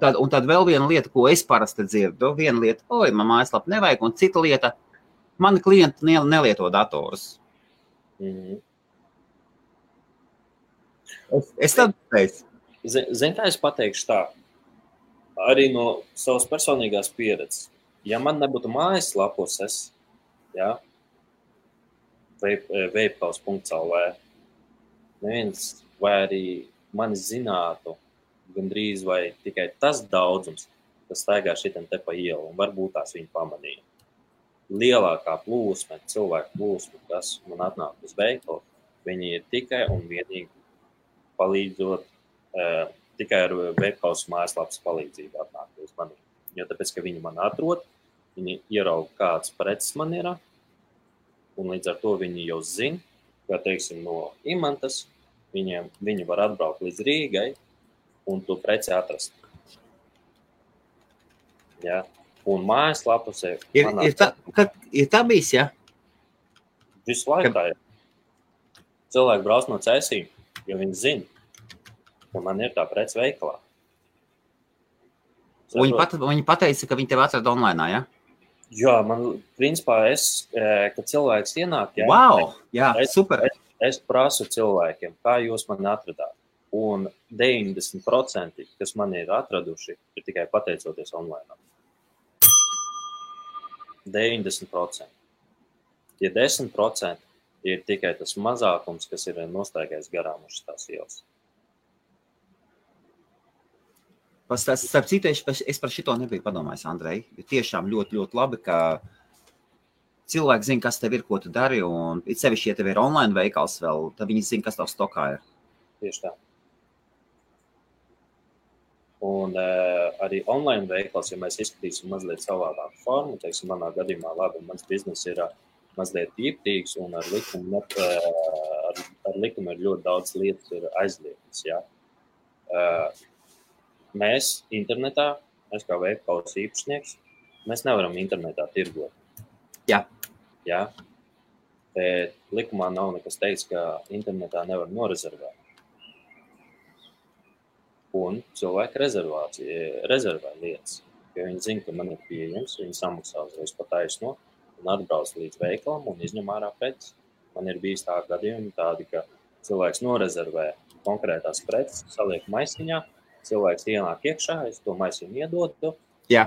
tad vēl viena lieta, ko es parasti dzirdu, viena lieta, man mājaslapa nevajag, un cita lieta, mani klienti nelieto datorus. Es tad teicu. Zini, kā es pateikšu tā, arī no savas personīgās pieredzes. Ja man nebūtu mājaslapos, ja, veipkaus.lv, neviens vai arī mani zinātu gandrīz vai tikai tas daudzums, kas staigā šitam te pa ielu, un varbūt tās viņi pamanīja. Lielākā plūsma, cilvēku plūsma, kas man atnāk uz veikalu, viņi ir tikai un vienīgi palīdzot, tikai ar veipkaus mājaslapas palīdzību atnāk uz mani. Jo tāpēc, ka viņi man atrod, viņi ierauga kāds preces man ir, un līdz ar to viņi jau zina, ka, teiksim, no Imantas, viņi var atbraukt līdz Rīgai un to preci atrast. Ja? Un mājaslapas ir tā bijis, ja? Visu laiku tā ir. Cilvēki brauc no Cēsīm, jo viņi zina, ka man ir tā preci veikalā. Viņi pateica, ka viņi tev atrada online, ja? Jā, man, principā, kad cilvēks ienāk, ja, wow, jā, super. Es prasu cilvēkiem, kā jūs mani atradāt. Un 90%, kas man ir atraduši, ir tikai pateicoties online. 90%. Ja 10% ir tikai tas mazākums, kas ir nostaigājis garām uz tās ielas. Starp citu, es par šito nebiju padomājis, Andrej. Tiešām ļoti, ļoti labi, ka cilvēki zina, kas tev ir, ko tu dari, un it sevišķi, ja tev ir online veikals vēl, tad viņi zina, kas tev stokā ir. Tieši tā. Un arī online veikals, ja mēs izskatīsim mazliet savādāku formu, teiksim, manā gadījumā, labi, mans biznes ir mazliet tīptīgs, un ar likumu ir ļoti daudz lietas ir aizliegtas, ja. Mēs internetā, mēs kā veikals īpašnieks, mēs nevaram internetā tirgot. Jā. Jā. Bet likumā nav nekas teiks, ka internetā nevar norezervēt. Un cilvēki rezervē lietas. Jo viņi zina, ka man ir pieejams, viņi samaksā uzreiz pa taisno un atbrauc līdz veikalam un izņem ārā preces. Man ir bijis tā gadījumi tādi, ka cilvēks norezervē konkrētās preces, saliek maisiņā, cilvēks ienāk iekšā, es to maisiņu iedodu. Jā.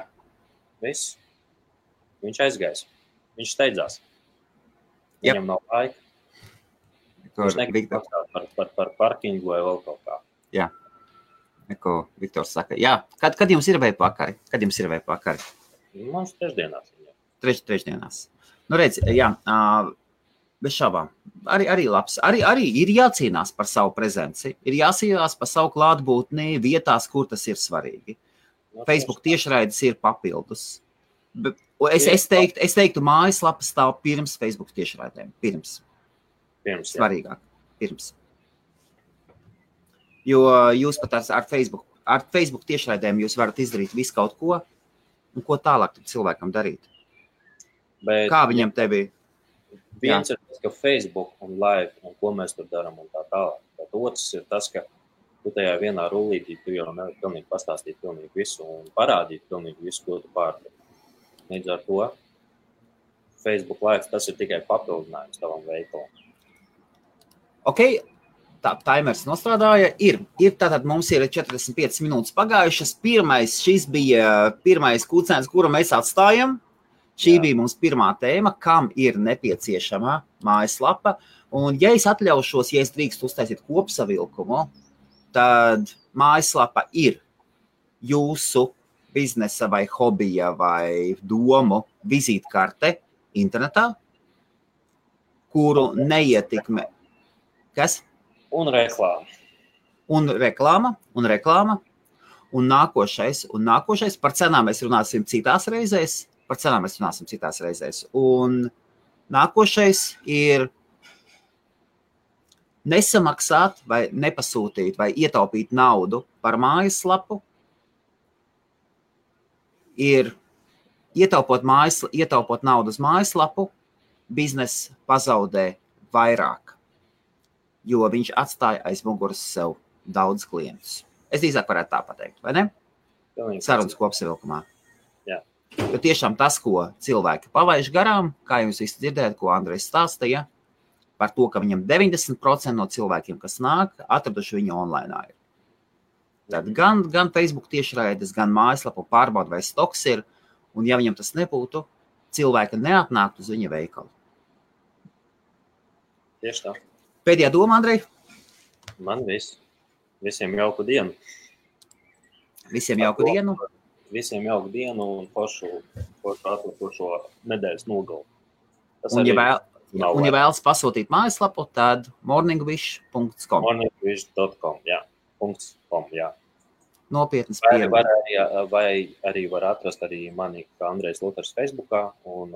Viss. Viņš aizgais. Viņš steidzās. Viņam nav laika. Viņš negrib maksāt par parkingu vai vēl kaut kā. Jā. Neko Viktors saka. Jā, kad jums ir vēpakari? Mums trešdienās. Trešdienās. Nu, redz, jā, bez šaubām. Arī labs. Arī ir jācīnās par savu prezenci. Ir jācīnās par savu klātbūtni vietās, kur tas ir svarīgi. Facebook tiešraides ir papildus. Es teiktu, mājaslapa stāv pirms Facebook tiešraidēm. Pirms. Svarīgāk. Pirms. Jo jūs pat ar Facebook tiešraidēm jūs varat izdarīt visu kaut ko, un ko tālāk cilvēkam darīt. Bet, kā viņam te bija? Viens ir tas, ka Facebook un live, un ko mēs tur darām un tā tālāk. Bet otrs ir tas, ka tu tajā vienā rullītī tu jau nevar pilnīgi pastāstīt pilnīgi visu un parādīt pilnīgi visu, ko tu pārdod. Līdz ar to Facebook live tas ir tikai papildinājums tavam veikalam. Ok, timers nostrādāja. Ir tātad mums ir 45 minūtes pagājušas. Šis bija pirmais kucēns, kuru mēs atstājam. Šī bija mums pirmā tēma, kam ir nepieciešama mājaslapa. Un, ja es atļaušos, ja es drīkstu uztaisīt kopsavilkumu, tad mājaslapa ir jūsu biznesa vai hobija vai domu vizītkarte internetā, kuru neietekmē. Kas? Un reklāma. Un reklāma. Un nākošais. Par cenām mēs runāsim citās reizēs. Un nākošais ir nesamaksāt vai nepasūtīt vai ietaupīt naudu par mājaslapu. Ir ietaupot naudu uz mājaslapu, bizness pazaudē vairāk, jo viņš atstāja aiz muguras sev daudz klientus. Es drīzāk varētu tā pateikt, vai ne? Sarunas kopsavilkumā. Jo tiešām tas, ko cilvēki pavaiž garām, kā jūs visi dzirdējat, ko Andrejs stāstīja, par to, ka viņam 90% no cilvēkiem, kas nāk, atraduši viņu online. Tad gan Facebook tiešraides, gan mājaslapu pārbauda, vai stoks ir, un ja viņam tas nebūtu, cilvēki neatnāktu uz viņa veikalu. Tieši tā. Pēdējā doma, Andrej? Man viss. Visiem jauku dienu. Visiem jauku dienu. Visiem jauku dienu un foršu atlikušo nedēļas nogalu. Un ja vēlas pasūtīt mājaslapu, tad morningwish.com. Morningwish.com, jā. .com, jā. Nopietnas pieeja. Vai arī var atrast arī mani, kā Andrejs Luters Facebookā, un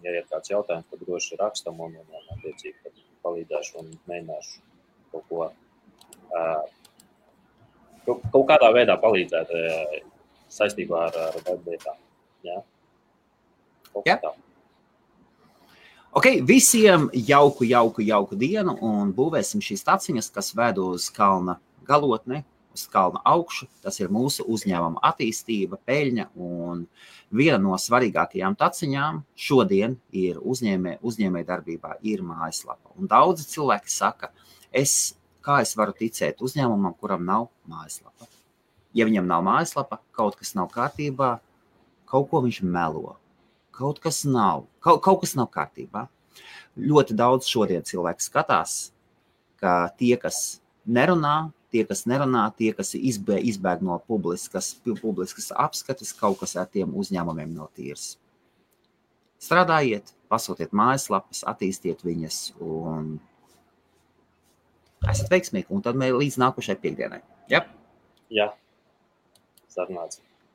ja ir kāds jautājums, tad droši rakstam un attiecīgi palīdzēšu un mēģināšu kaut kādā veidā palīdzēt saistībā ar webvietām. Jā. Ok, visiem jauku dienu un būvēsim šīs taciņas, kas ved uz kalna galotni, uz kalna augšu. Tas ir mūsu uzņēmuma attīstība, peļņa un viena no svarīgākajām taciņām šodien ir uzņēmē darbībā ir mājaslapa. Un daudzi cilvēki saka, kā es varu ticēt uzņēmumam, kuram nav mājaslapa. Ja viņam nav mājaslapa, kaut kas nav kārtībā, kaut ko viņš melo. Kaut kas nav kārtībā. Ļoti daudz šodien cilvēki skatās, ka tie, kas nerunā, tie, kas izbēg no publiskas apskates, kaut kas ar tiem uzņēmumiem nav tīrs. Strādājiet, pasūtiet mājaslapas, attīstiet viņas un esat veiksmīgi. Un tad mēs līdz nākošai piekdienai. Ja? Jā, sarunāts.